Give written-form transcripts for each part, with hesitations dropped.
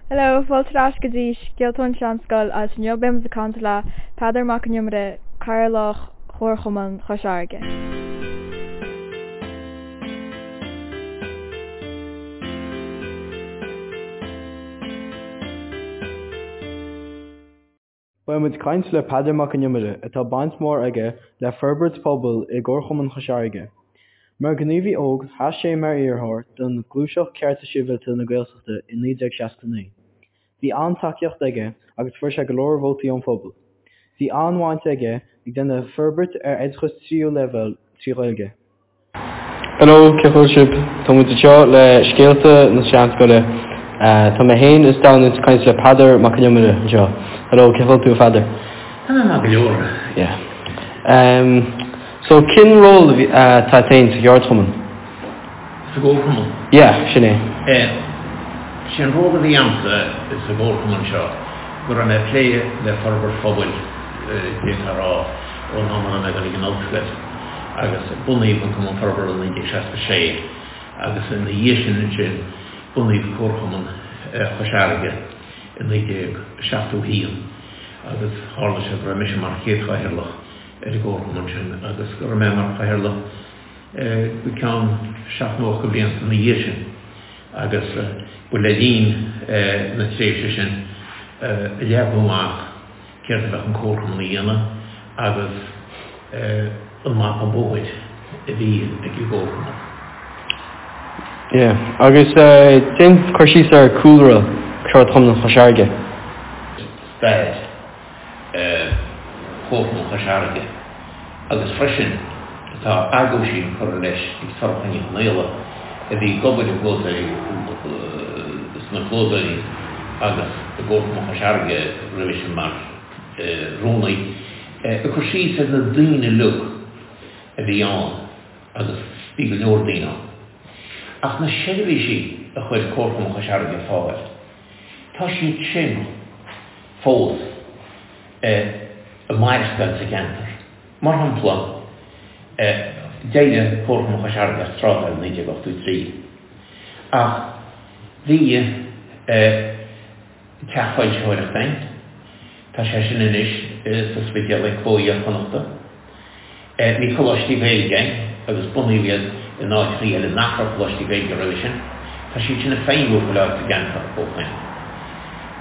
Hello, fáilte ar ais go dtí Scéalta ón Seanscoil agus inniu beidh muid ag caint le Peadar Mac an Iomaire, Cathaoirleach Chomharchumann Chois Fharraige. Beidh muid ag caint le Peadar Mac an Iomaire, atá baint mhór aige le forbairt pobail i gComharchumann Chois Fharraige. Mar ghníomhaí óg, sheas sé mar iarrthóir don Ghluaiseacht Cearta Sibhialta na Gaeltachta i 1969. Bhí an-tacaíocht aige agus fuair sé go leor vótaí ón phobal. Bhí an-bhaint aige ag déanamh forbairt ar oideachas tríú leibhéal trí Ghaeilge. Hello, cén chaoi a bhfuil sibh? Tá muid anseo le Scéalta na Seanscoile. Tá mé féin is Domhnall ag caint le Peadar Mac an Iomaire anseo. Hello, cén chaoi a bhfuil tú a Pheadair? Tá mé maith go leor. Yeah. Um, so cén ról atá agat féin sa cheardchumann? Sa gcomharchumann? Yeah, sin é. Eh, sé an ról a bhí a'msa sa gcomharchumann seo go raibh mé ag plé le forbairt phobail, d'fhéadfá a rá, ón am a raibh mé ag dul ag an ollscoil. agus bunaíodh an Cumann Forbartha i 1966 agus ina dhiaidh sin ansin bunaíodh Comharchumann Chois Fharraige i 1971 agus tharla sé go raibh mise mar chéad chathaoirleach ar an gcomharchumann sin agus go raibh mé mar chathaoirleach go ceann seacht nó ocht de bhlianta ina dhiaidh sin agus ba le linn na tréimhse sin a leagadh amach céard a bheadh an Comharchumann a dhéanamh agus an mapa bóthair a bhí ag an gComharchumann. Yeah. Agus déan cur síos ar cúlra Cheardchumann Chois Fharraige. Stair Chomharchumann Chois Fharraige agus freisin tá aguisín curtha leis ag Sorcha Ní Chonaola a bhí ag obair i gclódóirí sna clódóirí agus i gComharchumann Chois Fharraige roimhe sin mar rúnaí, ag cur síos ar na daoine uilig a bhí ann agus bhí go leor daoine ann. Ach na seirbhísí a chuir Comharchumann Chois Fharraige ar fáil, tá siad sin fós ag maireachtáil sa gceantar. Mar shampla, d'éirigh Comharchumann Chois Fharraige as trádáil i 1983, ach bhí teach foilsitheoireachta ann, tá sé sin anois sa Spidéal ag Cló Iar-Chonnachta. Bhí coláistí Gaeilge ann agus bunaíodh iad in áiteachaí eile nach raibh coláistí Gaeilge roimhe sin. Tá siad sin ag feidhmiú chuile áit sa gceantar ó shoin.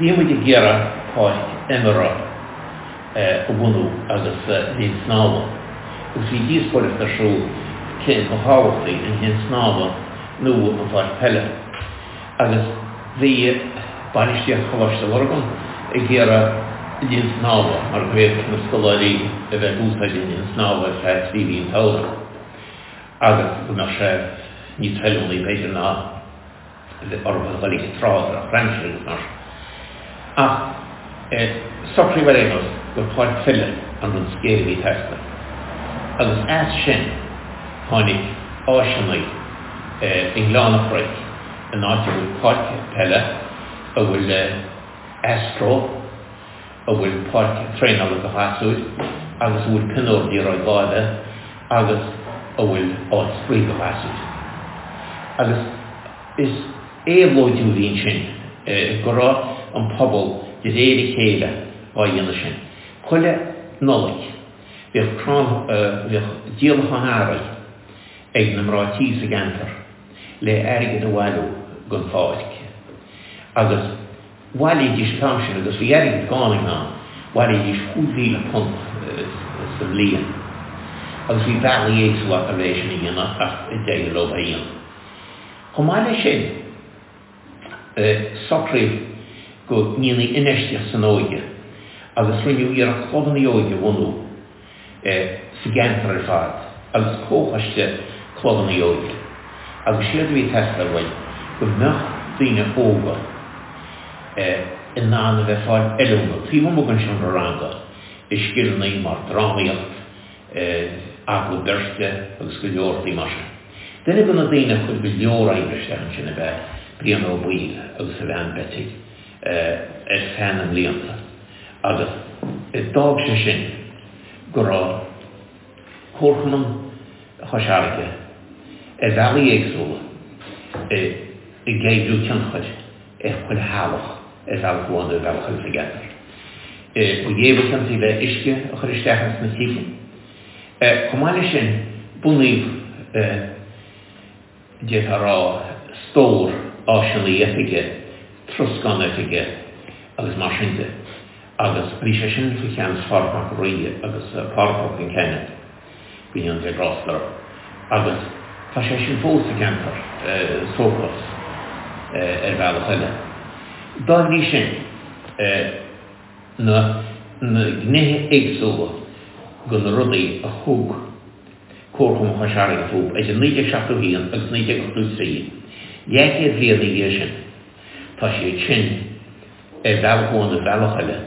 Bhí muid ag iarraidh páirc imeartha a bhunú agus linn snámha agus bhí díospóireacht ar siúl cé ba thábhachtaí, an linn snámha nó an pháirc peile. Agus bhí bainistíocht Choláiste Lurgan ag iarraidh linn snámha mar go bhféadfadh na scoláirí a bheith ag úsáid an linn snámha ar feadh 3 mhí an tsamhraidh agus go mbeadh sé níos feiliúnaí b'fhéidir ná a bheith orthu a dhul ag an trá drochaimsir agus mar sin. Ach socraíodh ar aon nós gur páirc pheile an rud is géire a bhí ag teastáil. Agus as sin tháinig áiseanna i nGleann an Chnoic in áit a bhfuil páirc peile, a bhfuil astro, a bhfuil páirc traenála do ghasúir agus a bhfuil pionóir liathróid láimhe agus a bhfuil áit spraoi do ghasúir. Agus is éabhlóidiú a bhí ansin go raibh an pobal de réir a chéile á dhéanamh sin. Chuile Nollaig bhíodh crann, bhíodh díolachán earraí ag na mná tí sa gceantar le airgead a bhailiú don pháirc agus bhailídís an t-am sin agus bhí airgead gann ann, bhailídís £5,000 sa mbliain agus bhí bealaí éagsúla acu le é sin a dhéanamh ach d'éirigh leo é a dhéanamh. Chomh maith leis sin, socraíodh go ndéanfaí infheistíocht san óige agus rinneadh iarracht clubanna óige a bhunú sa gceantar ar fad agus comhchoiste clubanna óige agus séard a bhí ag teastáil uainn go mbeadh daoine óga in ann a bheith ag fáil oiliúna taobh amuigh den seomra ranga i scileanna mar drámaíocht, agallamh beirte agus go leor rudaí mar sin. Duine de na daoine a chuir go leor oibre isteach ansin ab ea Brian Ó Baoill agus a bhean Betty ar feadh na mblianta agus d'fhág sé sin go raibh Comharchumann Chois Fharraige ar bhealaí éagsúla ag oibriú tionchair ar chuile theaghlach. ar bhealach amháin nó ar bhealach eile sa gceantar. Ba é ba chiontaí le uisce a chur isteach ins na tithe. Chomh maith leis sin, bunaíodh, d'fhéadfá a rá, stór áiseanna oifige, troscán oifige agus mar sin de agus bhí sé sin faoi cheannas Phádraig Mac an Rí agus Pádraig Ó Concheanainn, go ndéana Dia grásta orthu. Agus tá sé sin fós sa gceantar, Sócas, ar bhealach eile. Dá bhrí sin, na gnéithe éagsúla de na rudaí a thug Comharchumann Chois Fharraige fúthu idir 1971 agus 1983, leathchéad bliain ina dhiaidh sin, tá siad sin, ar bhealach amháin nó ar bhealach eile,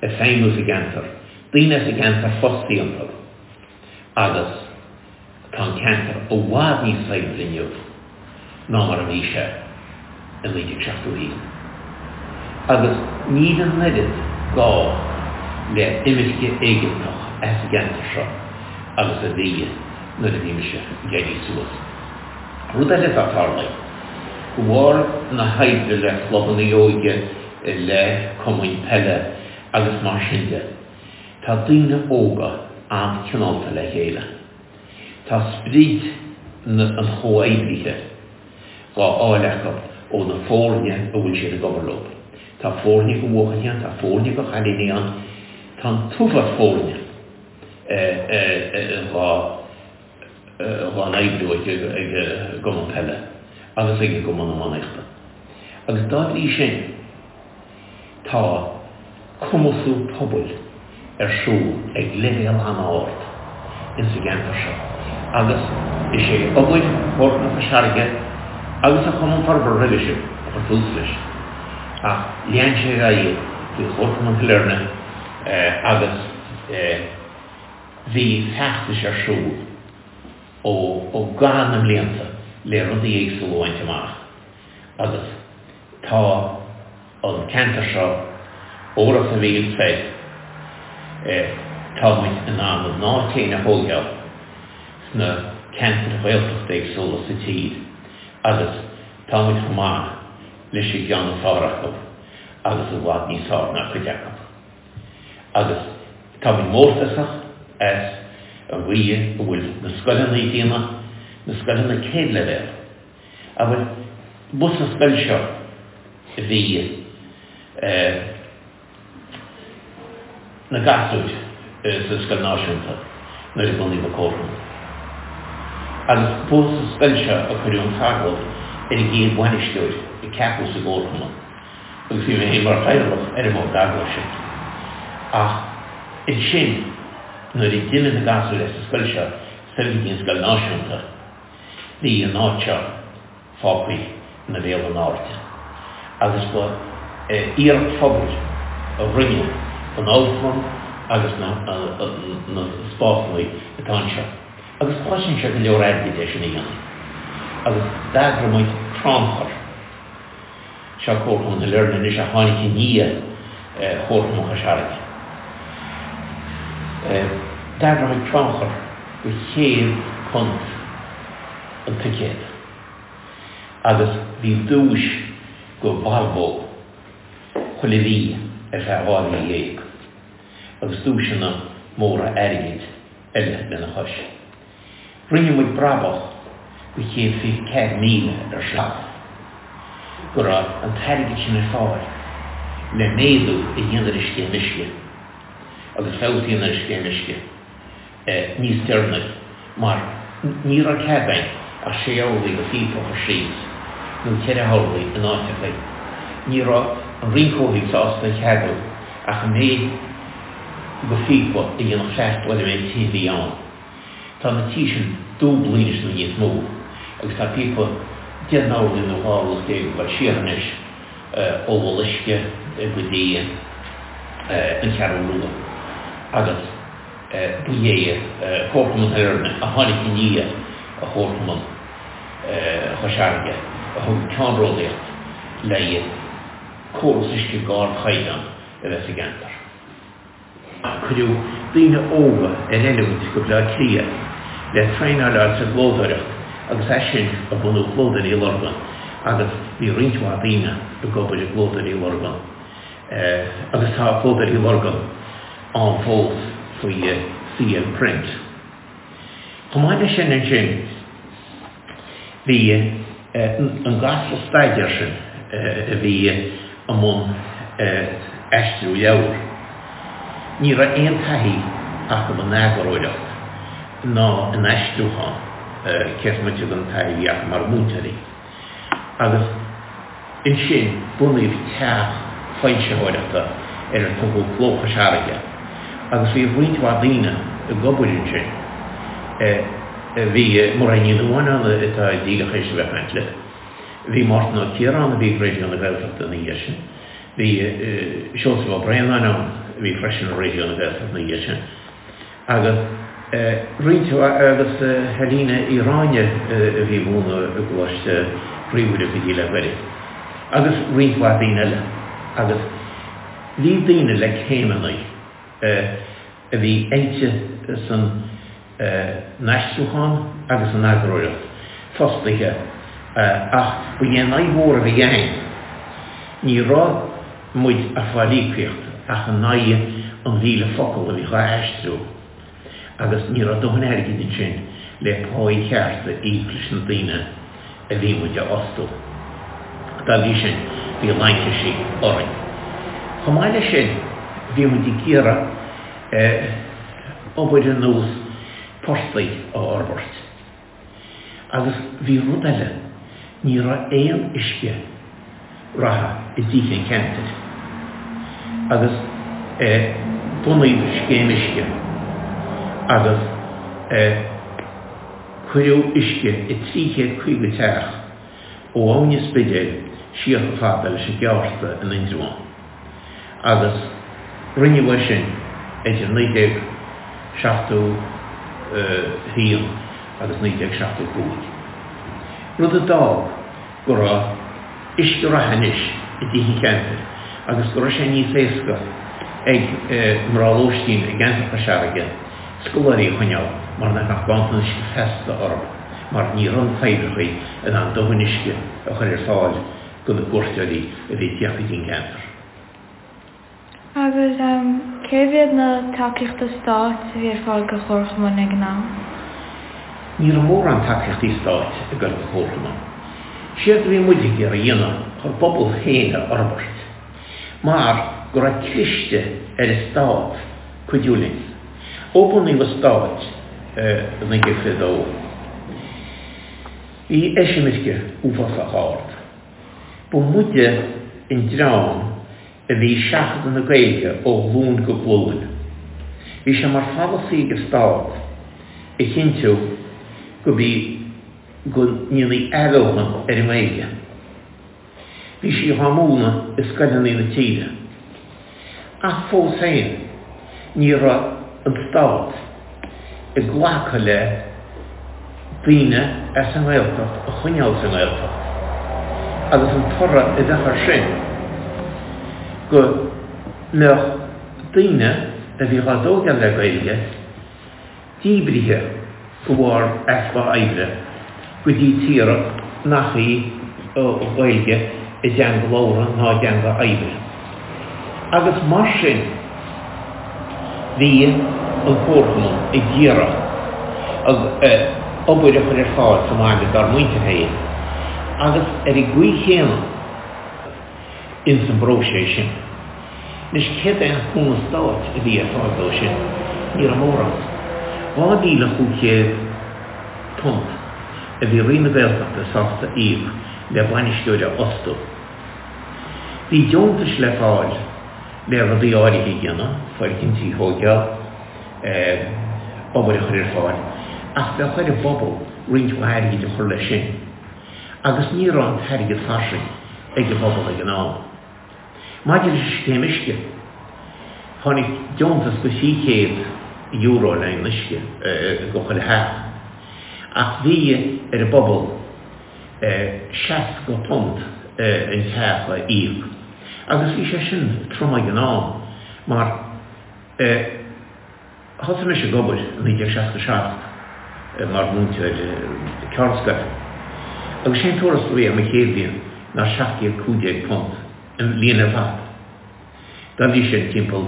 ag feidhmiú sa gceantar, daoine as an gceantar fostaithe iontu agus tá an ceantar i bhfad níos saibhre inniu ná mar a bhí sé i 1971. Agus níl an oiread gá le imirce éigeantach as an gceantar seo agus a bhí nuair a bhí mise ag éirí suas. Rud eile atá tarlaithe, de bharr na hoibre le clubanna óige, le cumainn peile agus mar sin de, tá daoine óga an-cineálta le chéile. Tá sprid an chomhoibrithe dhá fháil acu ó na foirne a bhfuil siad ag obair leo. Tá foirne de bhuachaillí ann, tá foirne de chailíní ann, tá an t-uafás foirne dhá dhá n-oibriú ag an gcumann peile agus ag an gcumann iománaíochta. Agus dá bhrí sin, tá cumasú pobail ar siúl ag leibhéal an-ard ins an gceantar seo agus is é obair Chomharchumann Chois Fharraige agus an Chumann Forbartha roimhe sin a chuir tús leis ach lean sé ar aghaidh faoi Chomharchumann Shailearna agus Bhí feachtais ar siúl ó i gcaitheamh na mblianta le rudaí éagsúla a bhaint amach agus tá an ceantar seo ó Ros a' Mhíl soir, tá muid in ann ár n-áit féin a thóigeáil sna ceantair Ghaeltachta éagsúla sa tír agus tá muid chomh maith leis an gceann is fearr acu agus i bhfad níos fearr ná cuid acu. Agus táimid mórtasach as an gcaoi a bhfuil na scoileanna ag déanamh, na scoileanna céad leibhéal. Abair, ba sa scoil seo a bhí na gasúir sa Scoil Náisiúnta nuair a bunaíodh an Comharchumann. Agus ba sa scoil seo a cuireadh an t-agallamh ar an gcéad bhainisteoir a ceapadh sa gComharchumann. agus bhí mé féin mar chathaoirleach ar an mbord agallaimh sin. Ach ansin, nuair a d'imigh na gasúir as an scoil seo soir go dtí an Scoil Náisiúnta, bhí an áit seo fágtha ina bhéal in airde. Agus ba iarracht phobail a rinne an amharclann agus na spásanna atá anseo. Agus chosain sé go leor airgid é sin a dhéanamh. Agus d'eagraigh muid crannchur. Seo Comharchumann Shailearna anois a tháinig i ndiaidh Chomharchumann Chois Fharraige. D'eagraigh muid crannchur go £100 an ticéad agus bhí duais go Volvo chuile mhí ar feadh 12 mhí agus duaiseanna móra airgid eile lena chois. Rinne muid brabach go 124,000 ar sin go raibh an t-airgead sin ar fáil le méadú a dhéanamh ar an scéim uisce agus feabhas a dhéanamh ar an scéim uisce níos deireanaí mar ní raibh cead againn ach sé orlaí go phíopa a chur síos nó ceithre horlaí in áiteachaí. Ní raibh an Roinn Comhshaoil sásta a cheadú ach an méid go phíopa a dhéanfadh freastal ar an méid tithe a bhí ann. Tá na tithe sin dúblaithe anois nó níos mó agus tá píopa 10 n-orlaí nó 12 orlach ag dul siar anois ó Mhol Uisce go dtí an Cheathrú Rua agus ba é Comharchumann Shailearna a tháinig i ndiaidh Chomharchumann Chois Fharraige a thug ceannródaíocht le córas uisce d'ardchaighdeán a bheith sa gceantar. Cuireadh daoine óga ar oiliúint go Bleá Cliath le traenáil a fháil sa gclódóireacht agus as sin a bunaíodh Clódóirí Lurgan. Agus bhí roinnt mhaith daoine ag obair i gClódóirí Lurgan agus tá Clódóirí Lurgan ann fós faoi CL Print. Chomh maith leis sin ansin bhí an gasra staidéir sin a bhí i mbun aistriú leabhar, ní raibh aon taithí acu in eagarthóireacht ná in aistriúchán, cé is moite den taithí a bhí acu mar mhúinteoirí. Agus ansin bunaíodh teach foilsitheoireachta ar ar tugadh Cló Chois Fharraige agus bhí roinnt mhaith daoine ag obair ansin. Bhí Mairéad Ní Nuadháin ann atá díreach théis a bheith ag caint libh. Bhí Mártan Ó Ciaráin a bhí ag Raidió na Gaeltachta ina dhiaidh sin. Bhí Seosamh Ó Braonáin ann a bhí freisin i Raidió na Gaeltachta ina dhiaidh sin. Agus roinnt mhaith, agus Helena Uí Ráinne a bhí ag múineadh i gColáiste Chroí Mhuire go dtí le gairid, agus roinnt mhaith daoine eile. Agus bhí daoine le céimeanna a bhí oilte san n-aistriúchán agus san eagarthóireacht fostaithe ach ba é an fhadhb mhór a bhí againn, ní raibh muid ag fáil íocaíocht ach in aghaidh an 1,000 focal a bhí dhá aistriú agus ní raibh dóthain airgid ansin le páí cheart a íoc leis na daoine a bhí muid a fhostú. Dá bhrí sin, bhí laincisí orainn. Chomh maith leis sin, bhí muid ag iarraidh obair ar nós portaigh a fhorbairt. Agus bhí rud eile, ní raibh aon uisce reatha i dtithe an cheantair. Agus bunaíodh scéim uisce agus cuireadh uisce i 350 teach ó Abhainn an Spidéil siar chomh fada leis an gCeárta in Indreabhán. Agus rinneadh é sin idir 1971 agus 1975, rud a d'fhág go raibh uisce reatha anois i dtithe an cheantair agus go raibh sé níos éasca ag mná lóistín i gceantar Chois Fharraige scoláirí a choinneáil mar nach mbeadh ganntan uisce feasta orthu mar ní raibh na toibreacha in ann dóthain uisce a chur ar fáil do na cuairteoirí a bhí ag tíocht go dtí an ceantar. Agus cé mhéad na tacaíochta stáit a bhí ar fáil do chomharchumainn ag an am? Ní raibh mórán tacaíochtaí stáit ag dul do chomharchumainn. Séard a bhí muid ag iarraidh a dhéanamh ár bpobal féin a fhorbairt mar go raibh cliste ar an stát cuidiú linn. Ó bunaíodh an stát i 1922, bhí eisimirce uafásach ard. Ba muide an dream a bhí ag seachadadh na Gaeilge ó ghlúin go glúin. Bhí sé mar pholasaí ag an Stát a chinntiú go bí go ndéanfaí athbheochan ar an nGaeilge. Bhí sí dhá múineadh i scoileanna na tíre. Ach fós féin, ní raibh an Stát ag glacadh le daoine as an nGaeltacht a choinneáil sa nGaeltacht agus an toradh a bheadh air sin go mbeadh daoine a bhí dhá dtógáil le Gaeilge díbrithe de bharr easpa oibre go dtí tíortha nach í an Ghaeilge a dteanga labhartha ná a dteanga oibre. Agus mar sin bhí an Comharchumann ag iarraidh obair a chur ar fáil sa mbaile dár muintir féin agus ar an gcaoi chéanna ins an bpróiseas sin. Anois, céard é an cúnamh stáit a bhí ar fáil dó sin? Ní raibh mórán. £2,500 a bhí Roinn na Gaeltachta sásta íoc le bainisteoir a fhostú. Bhí deontais le fáil le rudaí áirithe a dhéanamh, foirgintí a thóigeáil, obair a chur ar fáil, ach bheadh ar an bpobal roinnt mhaith airgid a chur leis sin. Agus ní raibh an t-airgead fairsing ag an bpobal ag an am. Maidir leis an scéim uisce, tháinig deontas de €300 le haghaidh an uisce go chuile theach, ach bhí ar an bpobal £60 an teach a íoc. Agus bhí sé sin trom ag an am mar Thosaigh mise ag obair i 1967 mar mhúinteoir ceardscoile. Agus sé an tuarastal a bhí agam an chéad bhliain ná £715 an bhliain ar fad. Dá bhrí sin timpeall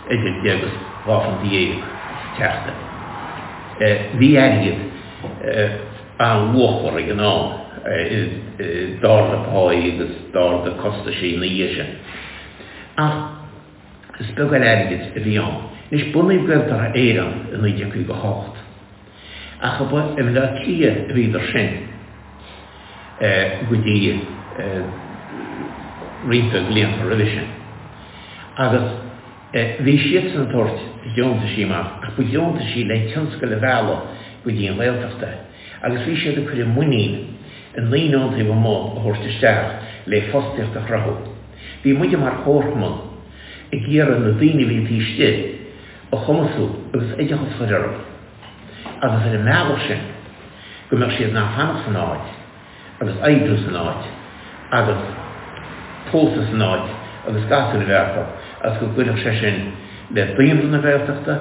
idir deich agus dhá phunt dhéag sa tseachtain. Bhí airgead an-luachmhar ag an am, d'ardaigh páí agus d'ardaigh costaisí ina dhiaidh sin. Ach is beag eile airgid a bhí ann. Anois bunaíodh Gaeltarra Éireann i 1958. Ach ba i mBaile Átha Cliath a bhíodar sin go dtí roinnt blianta roimhe sin. Agus bhí siadsan ag tabhairt deontaisí amach, ach ba dheontaisí le tionscail a mhealladh go dtí an Ghaeltacht é. Agus bhí siad ag cur a muinín i ndaoine ón taobh amuigh a thabhairt isteach le fostaíocht a chruthú. Bhí muide mar chomharchumann ag iarraidh na daoine a bhí taobh istigh a chumasú agus oideachas a chur orthu agus ar an mbealach sin go mbeadh siad in ann fanacht san áit agus oibriú san áit agus pósadh san áit agus gasúir a bheith acu agus go gcuirfeadh sé sin le daonra na Gaeltachta,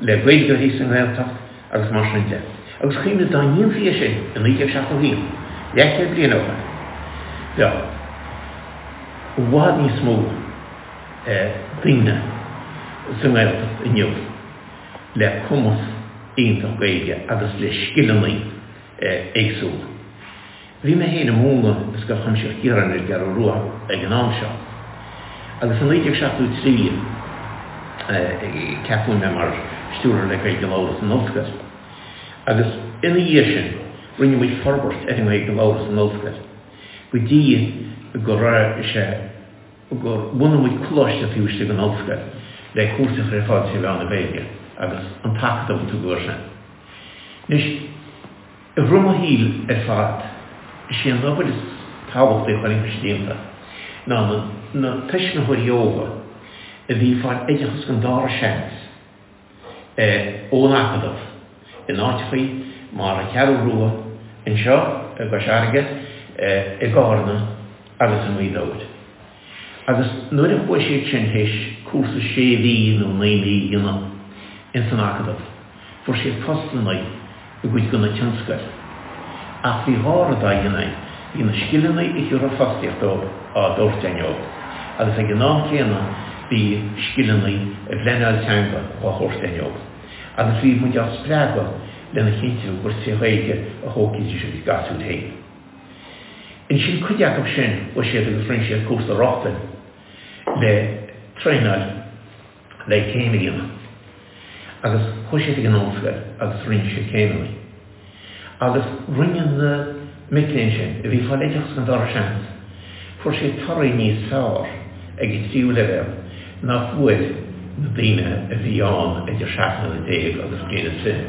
le Gaeilgeoirí sa nGaeltacht agus mar sin de. Agus cuimhnigh dá ndéanfaí é sin i 1971, leathchéad bliain ó shin, bheadh i bhfad níos mó daoine sa nGaeltacht inniu le cumas iontach Gaeilge agus le scileanna éagsúla. Bhí mé féin ag múineadh i Scoil Chuimsitheach Chiaráin ar an gCeathrú Rua ag an am seo agus i 1973 ceapadh mé mar stiúrthóir le Gaeilge a labhradh san ollscoil agus ina dhiaidh sin rinne muid forbairt ar an nGaeilge a labhradh san ollscoil go dtí go raibh sé gur bhunaigh muid coláiste taobh istigh den ollscoil le cúrsaí a chur ar fáil tré mheán na Gaeilge agus an tAcadamh a tugadh air sin. Anois, i rith mo shaoil ar fad, is é an obair is tábhachtaí a chonaic mise déanta ná na tuismitheoirí óga a bhí ag fáil oideachas den dara seans, ón Acadamh in áiteachaí mar an Cheathrú Rua, anseo i gCois Fharraige, i gCárna agus i nGaoth Dobhair. Agus nuair a chuaigh siad sin théis cúrsa sé mhí nó naoi mí a dhéanamh ins an Acadamh, fuair siad postanna i gcuid de na tionscail. Ach bhí dhá rud á dhéanamh againn, bhí na scileanna a thiúrfadh fostaíocht dóibh á dtabhairt againn dóibh, agus ag an am céanna bhí scileanna i bpleanáil teanga á thabhairt againn dóibh. Agus bhí muid á spreagadh lena chinntiú gur tré Ghaeilge a thógfaidís a gcuid gasúir féin. Ansin cuid acu sin chuaigh siad agus rinne siad cúrsa rochtain le traenáil le céim a dhéanamh. Agus chuaigh siad ag an ollscoil agus rinne siad céimeanna. Agus rinne na mic léinn sin, a bhí ag fáil oideachas den dara seans, fuair siad torthaí níos fearr ag an tríú leibhéal ná fuair na daoine a bhí ann idir 17 mbliana agus bliain is fiche.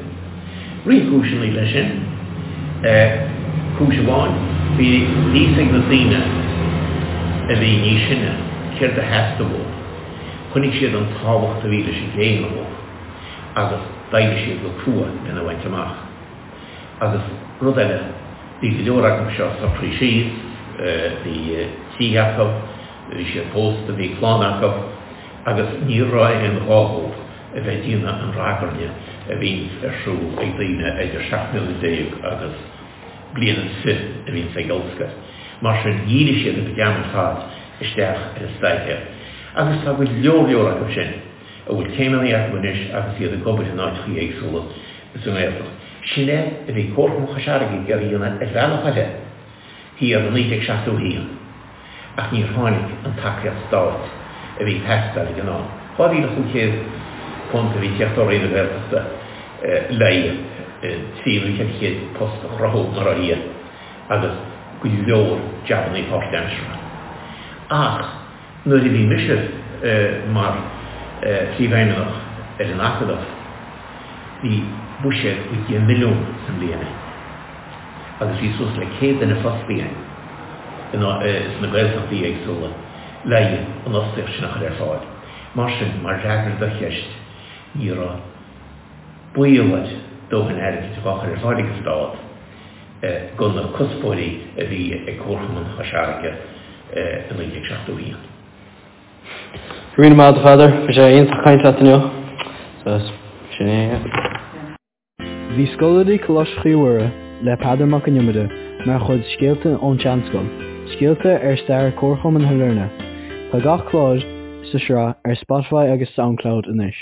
Roinnt cúiseanna leis sin. Cúis amháin, bhí fhios ag na daoine a bhí níos sine céard a theastaigh uathu. Chonaic siad an tábhacht a bhí leis an gcéim dóibh agus d'oibrigh siad go crua lena bhaint amach. Agus rud eile, bhí go leor acu seo socraithe síos, bhí tithe acu, bhí siad pósta, bhí clann acu agus ní raibh aon ghá dóibh a bheith ag déanamh an ragairne a bhíonns ar siúl ag daoine idir 17 mbliana agus bliain is fiche a bhíonns ag ollscoil. Mar sin, dhírigh siad a gcuid ama ar fad isteach ar an staidéar. Agus tá go leor leor acu sin a bhfuil céimeanna acu anois agus iad ag obair in áiteachaí éagsúla sa nGaeltacht. Sin é a bhí Comharchumann Chois Fharraige ag iarraidh a dhéanamh ar bhealach eile thiar i 1971 ach níor tháinig an tacaíocht stáit a bhí ag teastáil ag an am. £2,500 a bhí ag teacht ó Roinn na Gaeltachta le 300 nó 400 post a chruthú mar dhea agus go leor jabannaí páirtaimseartha. Ach nuair a bhí mise mar Phríomhfheidhmeannach ar an Acadamh, bhí buiséad go dtí milliún sa mbliain againn agus bhí suas le 100 duine fostaithe againn sna Gaeltachtaí éagsúla le an fhostaíocht sin a chur ar fáil. Mar sin, mar fhreagra do cheist, ní raibh baol air dóthain airgid dhá chur ar fáil ag an Stát do na cuspóirí a bhí ag Comharchumann Chois Fharraige i 1971. Go raibh míle maith agat a Pheadair, bhí sé iontach caint leat inniu. So, sin é. Bhí scoláirí Coláiste Chroí Mhuire le Peadar Mac an Iomaire. mar chuid Scéalta ón tSeanscoil, scéalta ar stair Comharchumann Shailearna. Tá gach clár sa sraith ar Spotify agus Soundcloud anois.